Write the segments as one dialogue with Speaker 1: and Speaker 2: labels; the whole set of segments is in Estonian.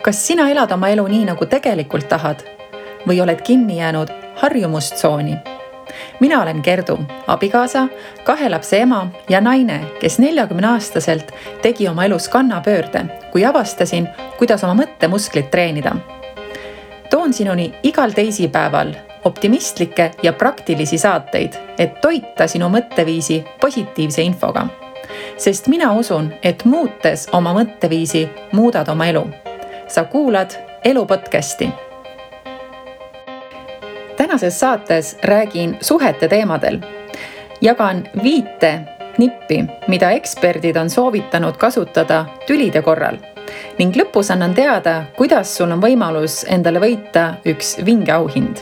Speaker 1: Kas sina elad oma elu nii, nagu tegelikult tahad või oled kinni jäänud harjumustsooni? Mina olen Gerdu, abikaasa, 2 lapse ema ja naine, kes 40-aastaselt tegi oma elus kannapöörde, kui avastasin, kuidas oma mõttemusklit treenida. Toon sinuni igal teisipäeval optimistlikke ja praktilisi saateid, et toita sinu mõtteviisi positiivse infoga. Sest mina usun, et muutes oma mõtteviisi muudad oma elu. Sa kuulad Elu podcasti. Tänases saates räägin suhete teemadel. Jagan 5 nippi, mida eksperdid on soovitanud kasutada tülide korral. Ning lõpus annan teada, kuidas sul on võimalus endale võita üks vinge auhind.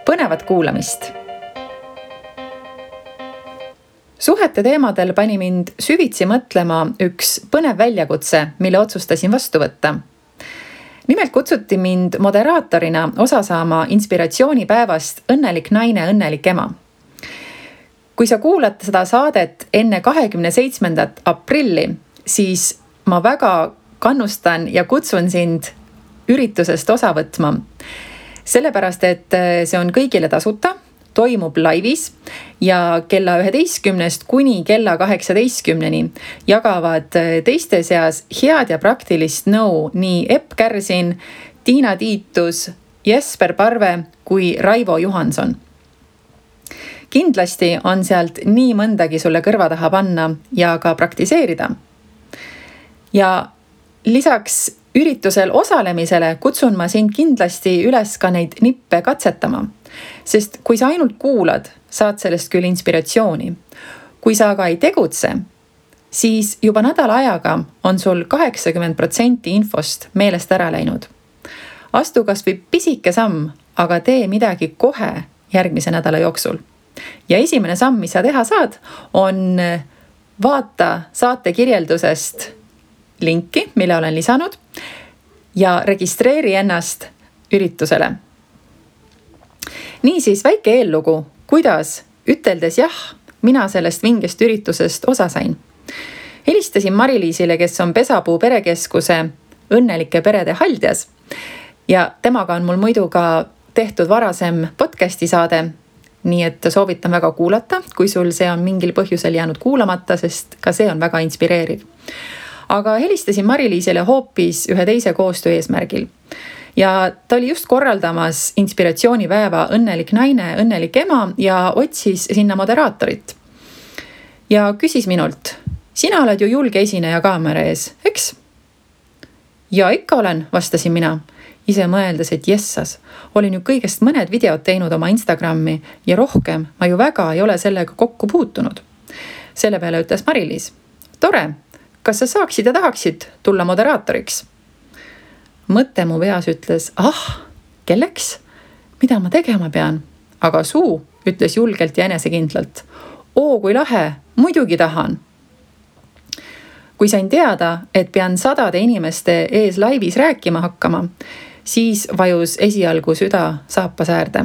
Speaker 1: Põnevat kuulamist! Suhete teemadel pani mind süvitsi mõtlema üks põnev väljakutse, mille otsustasin vastu võtta. Nimelt kutsuti mind moderaatorina osa saama inspiratsioonipäevast Õnnelik naine, õnnelik ema. Kui sa kuulad seda saadet enne 27. aprilli, siis ma väga kannustan ja kutsun sind üritusest osa võtma. Sellepärast, et see on kõigile tasuta, toimub laivis ja kella 11 kuni kella 18 jagavad teiste seas head ja praktilist nõu nii Epp Kärsin, Tiina Tiitus, Jesper Parve kui Raivo Johanson. Kindlasti on sealt nii mõndagi sulle kõrva taha panna ja ka praktiseerida. Ja lisaks üritusel osalemisele kutsun ma sind kindlasti üles ka neid nippe katsetama. Sest kui sa ainult kuulad, saad sellest küll inspiratsiooni. Kui sa aga ei tegutse, siis juba nädala ajaga on sul 80% infost meelest ära läinud. Astu kas või pisike samm, aga tee midagi kohe järgmise nädala jooksul. Ja esimene samm, mis sa teha saad, on vaata saate kirjeldusest linki, mille olen lisanud ja registreeri ennast üritusele. Niisiis väike eellugu, kuidas üteldes jah, mina sellest vingest üritusest osa sain. Helistasin Mari-Liisile, kes on Pesapuu perekeskuse Õnnelike perede haldjas ja temaga on mul muidu ka tehtud varasem podcasti saade, nii et soovitan väga kuulata, kui sul see on mingil põhjusel jäänud kuulamata, sest ka see on väga inspireeriv. Aga helistasin Mari-Liisile hoopis ühe teise koostöö eesmärgil. Ja ta oli just korraldamas inspiratsioonipäeva Õnnelik naine, õnnelik ema ja otsis sinna moderaatorit. Ja küsis minult, sina oled ju julge esineja kaamera ees, eks? Ja ikka olen, vastasin mina. Ise mõeldes, et jessas, olin ju kõigest mõned videod teinud oma Instagrami ja rohkem ma ju väga ei ole sellega kokku puutunud. Selle peale ütles Mari-Liis, tore, kas sa saaksid ja tahaksid tulla moderaatoriks? Mõte mu peas ütles, kelleks? Mida ma tegema pean? Aga suu ütles julgelt ja enesekindlalt. Kui lahe, muidugi tahan. Kui sain teada, et pean 100 inimeste ees laivis rääkima hakkama, siis vajus esialgu süda saapas äärde.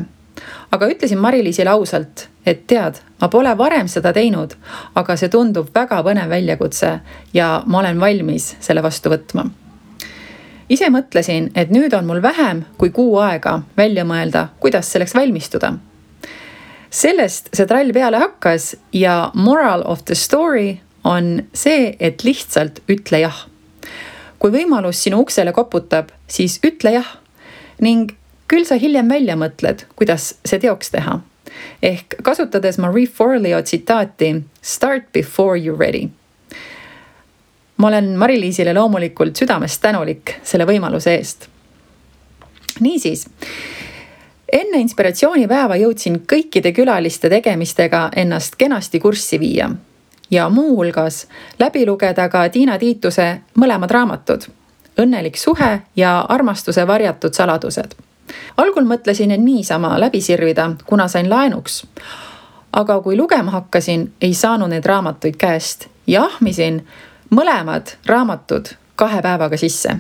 Speaker 1: Aga ütlesin Mari-Liisile ausalt, et tead, ma pole varem seda teinud, aga see tundub väga põnev väljakutse ja ma olen valmis selle vastu võtma. Ise mõtlesin, et nüüd on mul vähem kui kuu aega välja mõelda, kuidas selleks valmistuda. Sellest see trall peale hakkas ja moral of the story on see, et lihtsalt ütle jah. Kui võimalus sinu uksele koputab, siis ütle jah ning küll sa hiljem välja mõtled, kuidas see teoks teha. Ehk kasutades Marie Forleo tsitaati Start before you're ready. Ma olen Mari-Liisile loomulikult südamest tänulik selle võimaluse eest. Niisiis, enne inspiratsioonipäeva jõudsin kõikide külaliste tegemistega ennast kenasti kurssi viia ja muu hulgas läbi lugeda ka Tiina Tiituse mõlemad raamatud, Õnnelik suhe ja Armastuse varjatud saladused. Algul mõtlesin, et niisama läbi sirvida, kuna sain laenuks. Aga kui lugema hakkasin, ei saanud need raamatuid käest ja ahmisin mõlemad raamatud 2 päevaga sisse.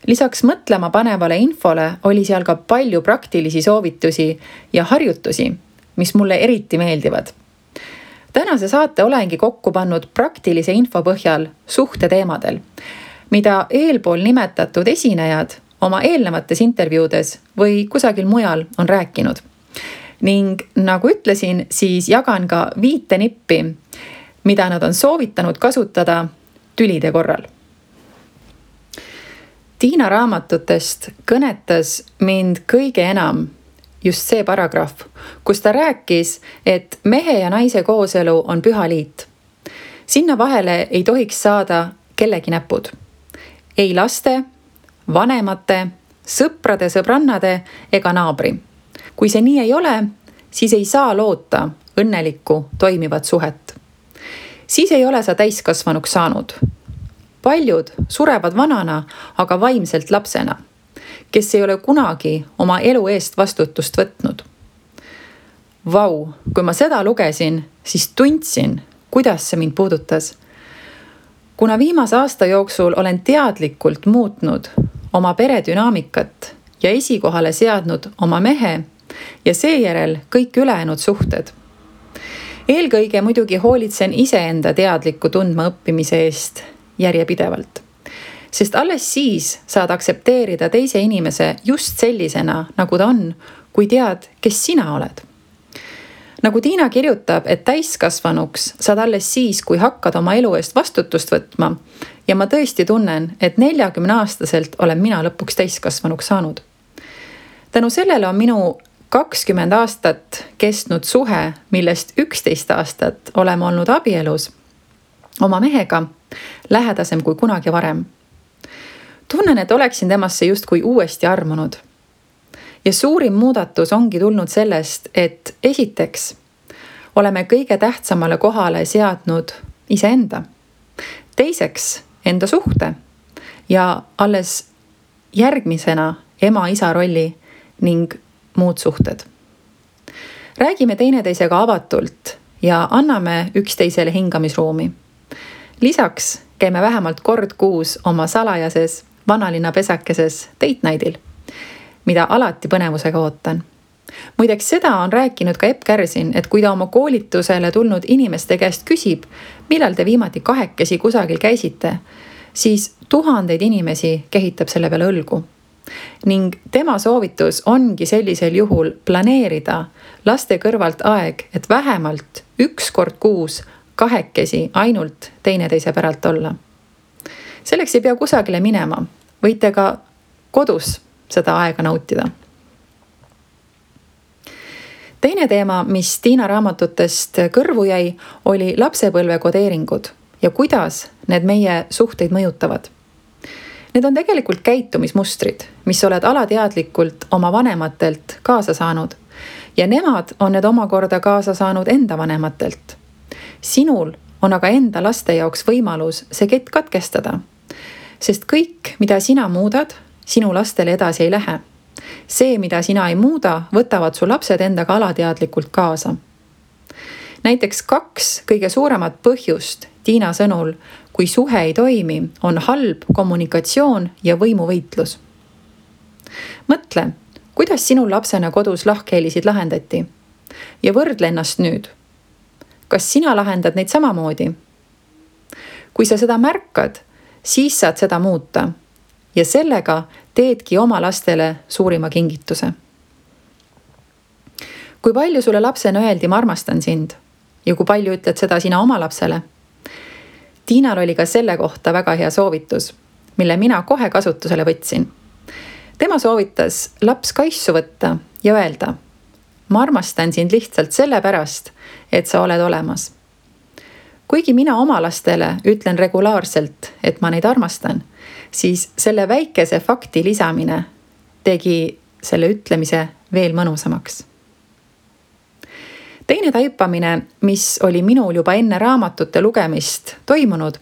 Speaker 1: Lisaks mõtlema panevale infole oli seal ka palju praktilisi soovitusi ja harjutusi, mis mulle eriti meeldivad. Tänase saate olengi kokku pannud praktilise info põhjal suhte teemadel, mida eelpool nimetatud esinejad oma eelnevates intervjuudes või kusagil mujal on rääkinud. Ning nagu ütlesin, siis jagan ka 5 nippi, mida nad on soovitanud kasutada tülide korral. Tiina raamatutest kõnetas mind kõige enam just see paragrahv, kus ta rääkis, et mehe ja naise kooselu on püha liit. Sinna vahele ei tohiks saada kellegi näpud. Ei laste, vanemate, sõprade, sõbrannade ega naabri. Kui see nii ei ole, siis ei saa loota õnnelikku toimivat suhet. Siis ei ole sa täiskasvanuks saanud. Paljud surevad vanana, aga vaimselt lapsena, kes ei ole kunagi oma elu eest vastutust võtnud. Vau, kui ma seda lugesin, siis tundsin, kuidas see mind puudutas. Kuna viimase aasta jooksul olen teadlikult muutnud oma pere dünaamikat ja esikohale seadnud oma mehe ja seejärel kõik ülejäänud suhted. Eelkõige muidugi hoolitsen iseenda teadliku tundma õppimise eest järjepidevalt. Sest alles siis saad aktsepteerida teise inimese just sellisena, nagu ta on, kui tead, kes sina oled. Nagu Tiina kirjutab, et täiskasvanuks saad alles siis, kui hakkad oma elu eest vastutust võtma ja ma tõesti tunnen, et 40-aastaselt olen mina lõpuks täiskasvanuks saanud. Tänu sellele on minu 20 aastat kestnud suhe, millest 11 aastat oleme olnud abielus oma mehega, lähedasem kui kunagi varem. Tunnen, et oleksin temasse justkui uuesti armunud. Ja suurim muudatus ongi tulnud sellest, et esiteks oleme kõige tähtsamale kohale seadnud iseenda. Teiseks enda suhte ja alles järgmisena ema-isa rolli ning muud suhted. Räägime teineteisega avatult ja anname üksteisele hingamisruumi. Lisaks käime vähemalt kord kuus oma salajases vanalinna pesakeses date night'il, mida alati põnevusega ootan. Muideks seda on rääkinud ka Epp Kärsin, et kui ta oma koolitusele tulnud inimeste käest küsib, millal te viimati kahekesi kusagil käisite, siis tuhandeid inimesi kehitab selle peale õlgu. Ning tema soovitus ongi sellisel juhul planeerida laste kõrvalt aeg, et vähemalt 1 kord kuus kahekesi ainult teineteise päralt olla. Selleks ei pea kusagile minema, võite ka kodus seda aega nautida. Teine teema, mis Tiina raamatutest kõrvu jäi, oli lapsepõlve kodeeringud ja kuidas need meie suhteid mõjutavad. Need on tegelikult käitumismustrid, mis oled alateadlikult oma vanematelt kaasa saanud ja nemad on need omakorda kaasa saanud enda vanematelt. Sinul on aga enda laste jaoks võimalus see kett katkestada, sest kõik, mida sina muudad, sinu lastele edasi ei lähe. See, mida sina ei muuda, võtavad su lapsed endaga alateadlikult kaasa. Näiteks 2 kõige suuremat põhjust Tiina sõnul, kui suhe ei toimi, on halb kommunikatsioon ja võimuvõitlus. Mõtle, kuidas sinu lapsena kodus lahkhelisid lahendati ja võrdle ennast nüüd. Kas sina lahendad neid samamoodi? Kui sa seda märkad, siis saad seda muuta ja sellega teedki oma lastele suurima kingituse. Kui palju sulle lapsena öeldi, ma armastan sind ja kui palju ütled seda sina oma lapsele? Tiinal oli ka selle kohta väga hea soovitus, mille mina kohe kasutusele võtsin. Tema soovitas laps kaissu võtta ja öelda, ma armastan sind lihtsalt sellepärast, et sa oled olemas. Kuigi mina oma lastele ütlen regulaarselt, et ma neid armastan, siis selle väikese fakti lisamine tegi selle ütlemise veel mõnusamaks. Teine taipamine, mis oli minul juba enne raamatute lugemist toimunud,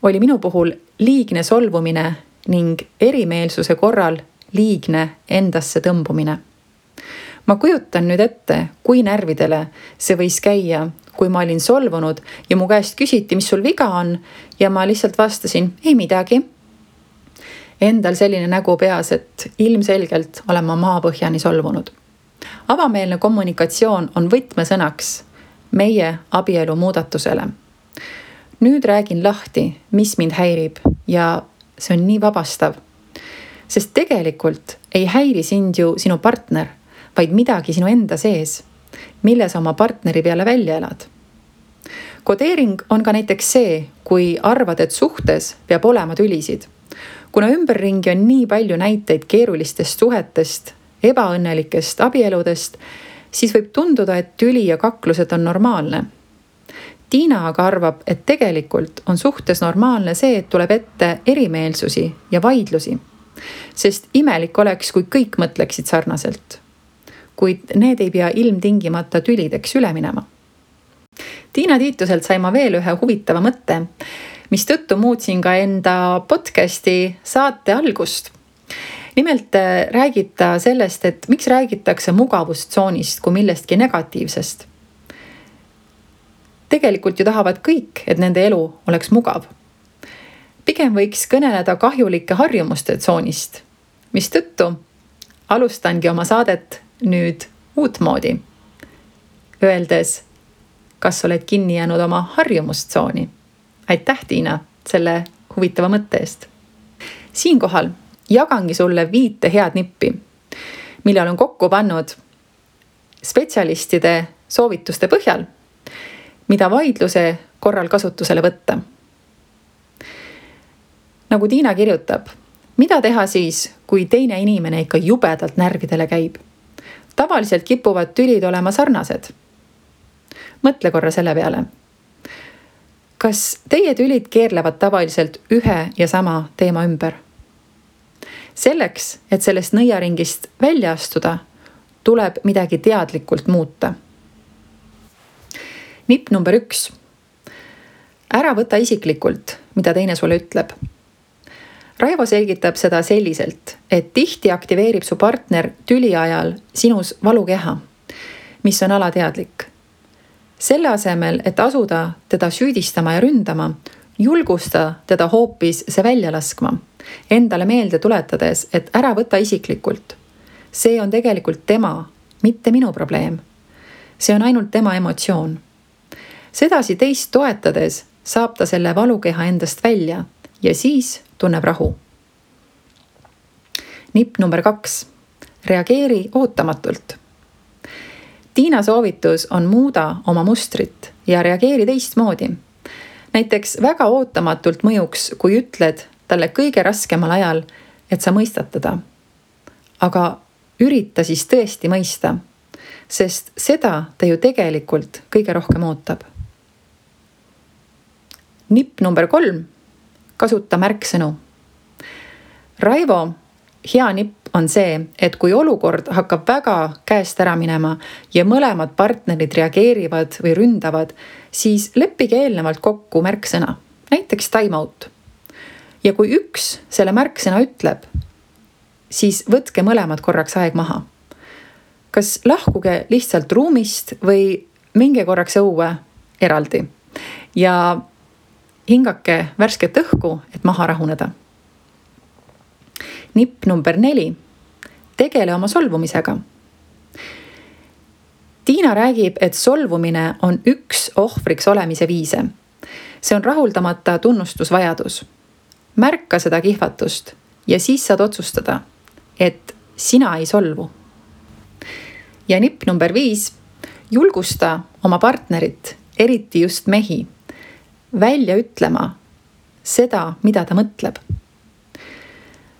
Speaker 1: oli minu puhul liigne solvumine ning erimeelsuse korral liigne endasse tõmbumine. Ma kujutan nüüd ette, kui närvidele see võis käia, kui ma olin solvunud ja mu käest küsiti, mis sul viga on ja ma lihtsalt vastasin, ei midagi. Endal selline nägu peas, et ilmselgelt olen ma maapõhjani solvunud. Avameelne kommunikatsioon on võtmesõnaks meie abielu muudatusele. nüüd räägin lahti, mis mind häirib ja see on nii vabastav. Sest tegelikult ei häiri sind ju sinu partner, vaid midagi sinu enda sees, mille sa oma partneri peale välja elad. Kodeering on ka näiteks see, kui arvad, et suhtes peab olema tülisid. Kuna ümberringi on nii palju näiteid keerulistest suhetest, ebaõnnelikest abieludest, siis võib tunduda, et tüli ja kaklused on normaalne. Tiina aga arvab, et tegelikult on suhtes normaalne see, et tuleb ette erimeelsusi ja vaidlusi. Sest imelik oleks, kui kõik mõtleksid sarnaselt. Kuid need ei pea ilmtingimata tülideks üle minema. Tiina Tiituselt sai ma veel ühe huvitava mõtte, mis tõttu muutsin ka enda podcasti saate algust. Nimelt räägib ta sellest, et miks räägitakse mugavustsoonist kui millestki negatiivsest. Tegelikult ju tahavad kõik, et nende elu oleks mugav. Pigem võiks kõneleda kahjulike harjumuste tsoonist, mis tõttu alustangi oma saadet nüüd uutmoodi, öeldes, kas oled kinni jäänud oma harjumustsooni. Aitäh, Tiina, selle huvitava mõtte eest. Siinkohal jagangi sulle 5 head nippi, mille olen kokku pannud spetsialistide soovituste põhjal, mida vaidluse korral kasutusele võtta. Nagu Tiina kirjutab, mida teha siis, kui teine inimene ikka jubedalt närvidele käib? Tavaliselt kipuvad tülid olema sarnased. Mõtle korra selle peale. Kas teie tülid keerlevad tavaliselt ühe ja sama teema ümber? Selleks, et sellest nõiaringist välja astuda, tuleb midagi teadlikult muuta. Nipp number 1. Ära võta isiklikult, mida teine sulle ütleb. Raivo selgitab seda selliselt, et tihti aktiveerib su partner tüli ajal sinus valukeha, mis on alateadlik. Selle asemel, et asuda teda süüdistama ja ründama, julgusta teda hoopis see välja laskma, endale meelde tuletades, et ära võta isiklikult. See on tegelikult tema, mitte minu probleem. See on ainult tema emotsioon. Sedasi teist toetades saab ta selle valukeha endast välja ja siis tunneb rahu. Nipp number 2. Reageeri ootamatult. Tiina soovitus on muuda oma mustrit ja reageeri teistmoodi. Näiteks väga ootamatult mõjuks, kui ütled talle kõige raskemal ajal, et sa mõistad teda. Aga ürita siis tõesti mõista, sest seda ta ju tegelikult kõige rohkem ootab. Nipp number 3. Kasuta märksõnu. Raivo hea nipp on see, et kui olukord hakkab väga käest ära minema ja mõlemad partnerid reageerivad või ründavad, siis leppige eelnevalt kokku märksõna, näiteks time out. Ja kui üks selle märksõna ütleb, siis võtke mõlemad korraks aeg maha. Kas lahkuge lihtsalt ruumist või minge korraks õue eraldi ja hingake värsket õhku, et maha rahuneda. Nipp number 4. Tegele oma solvumisega. Tiina räägib, et solvumine on üks ohvriks olemise viise. See on rahuldamata tunnustusvajadus. Märka seda kihvatust ja siis saad otsustada, et sina ei solvu. Ja nipp number 5. Julgusta oma partnerit, eriti just mehi, välja ütlema seda, mida ta mõtleb.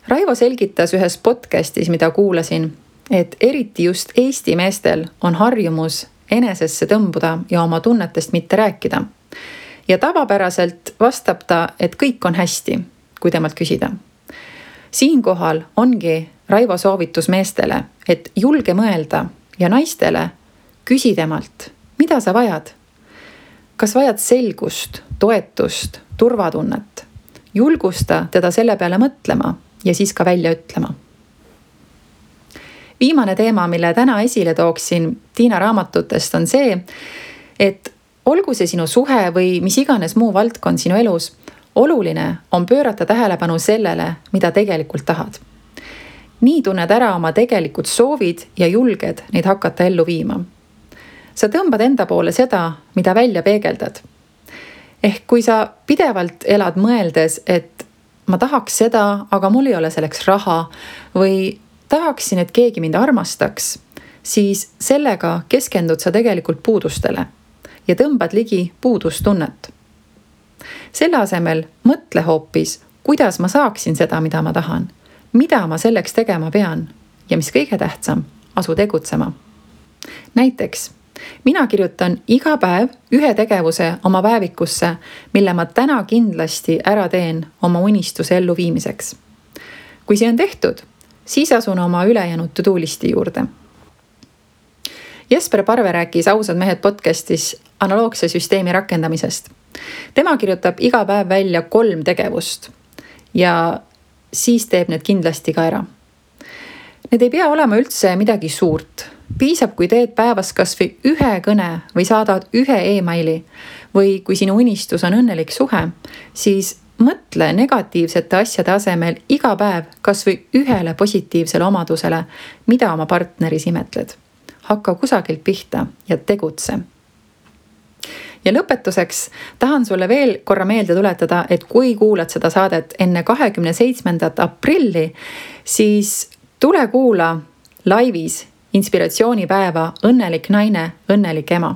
Speaker 1: Raivo selgitas ühes podcastis, mida kuulasin, et eriti just Eesti meestel on harjumus enesesse tõmbuda ja oma tunnetest mitte rääkida. Ja tavapäraselt vastab ta, et kõik on hästi, kui temalt küsida. Siinkohal ongi Raivo soovitus meestele, et julge mõelda ja naistele küsi temalt, mida sa vajad? Kas vajad selgust, toetust, turvatunnet? Julgusta teda selle peale mõtlema ja siis ka välja ütlema. Viimane teema, mille täna esile tooksin Tiina raamatutest, on see, et olgu see sinu suhe või mis iganes muu valdkond sinu elus, oluline on pöörata tähelepanu sellele, mida tegelikult tahad. Nii tunned ära oma tegelikud soovid ja julged neid hakata ellu viima. Sa tõmbad enda poole seda, mida välja peegeldad. Ehk kui sa pidevalt elad mõeldes, et ma tahaks seda, aga mul ei ole selleks raha või tahaksin, et keegi mind armastaks, siis sellega keskendud sa tegelikult puudustele ja tõmbad ligi puudustunnet. Selle asemel mõtle hoopis, kuidas ma saaksin seda, mida ma tahan, mida ma selleks tegema pean ja mis kõige tähtsam, asu tegutsema. Näiteks, mina kirjutan iga päev ühe tegevuse oma päevikusse, mille ma täna kindlasti ära teen oma unistuse elluviimiseks. Kui see on tehtud, siis asun oma ülejäänud to-do listi juurde. Jesper Parve rääkis Ausad mehed podcastis analoogse süsteemi rakendamisest. Tema kirjutab iga päev välja 3 tegevust ja siis teeb need kindlasti ka ära. Need ei pea olema üldse midagi suurt. Piisab, kui teed päevas kas või ühe kõne või saadad ühe e-maili või kui sinu unistus on õnnelik suhe, siis mõtle negatiivsete asjade asemel iga päev kas või ühele positiivsele omadusele, mida oma partneris imetled. Hakka kusagilt pihta ja tegutse. Ja lõpetuseks tahan sulle veel korra meelde tuletada, et kui kuulad seda saadet enne 27. aprilli, siis tule kuula laivis inspiratsioonipäeva Õnnelik naine, õnnelik ema.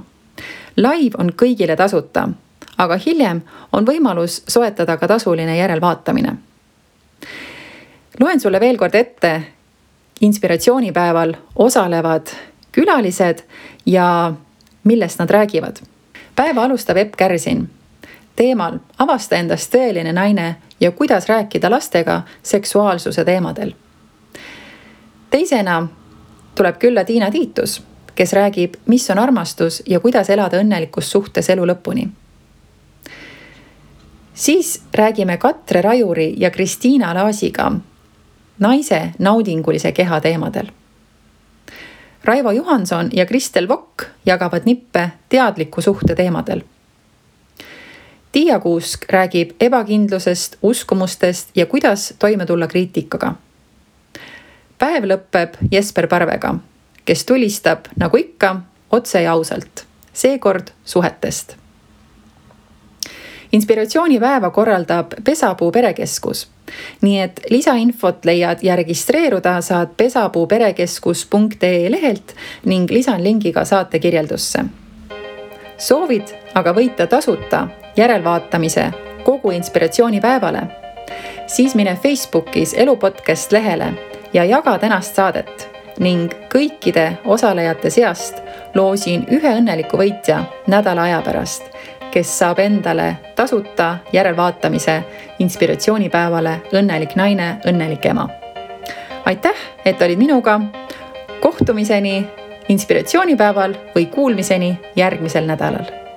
Speaker 1: Live on kõigile tasuta, aga hiljem on võimalus soetada ka tasuline järelvaatamine. Loen sulle veel kord ette inspiratsioonipäeval osalevad külalised ja millest nad räägivad. Päeva alustab Epp Kärsin teemal avasta endast tõeline naine ja kuidas rääkida lastega seksuaalsuse teemadel. Teisena tuleb külla Tiina Tiitus, kes räägib, mis on armastus ja kuidas elada õnnelikus suhtes elu lõpuni. Siis räägime Katre Rajuri ja Kristiina Laasiga naise naudingulise keha teemadel. Raivo Johanson ja Kristel Vokk jagavad nippe teadliku suhte teemadel. Tiia Kuusk räägib ebakindlusest, uskumustest ja kuidas toime tulla kriitikaga. Päev lõpeb Jesper Parvega, kes tulistab, nagu ikka, otse ja ausalt, seekord suhetest. Inspiratsioonipäeva korraldab Pesapuu perekeskus, nii et lisainfot leiad ja registreeruda saad pesapuuperekeskus.ee lehelt ning lisan lingi ka saate kirjeldusse. Soovid aga võita tasuta järelvaatamise kogu inspiratsioonipäevale, siis mine Facebookis Elupodcast lehele ja jaga tänast saadet ning kõikide osalejate seast loosin ühe õnneliku võitja nädala aja pärast, kes saab endale tasuta järelvaatamise inspiratsioonipäevale Õnnelik naine, õnnelik ema. Aitäh, et olid minuga. Kohtumiseni inspiratsioonipäeval või kuulmiseni järgmisel nädalal.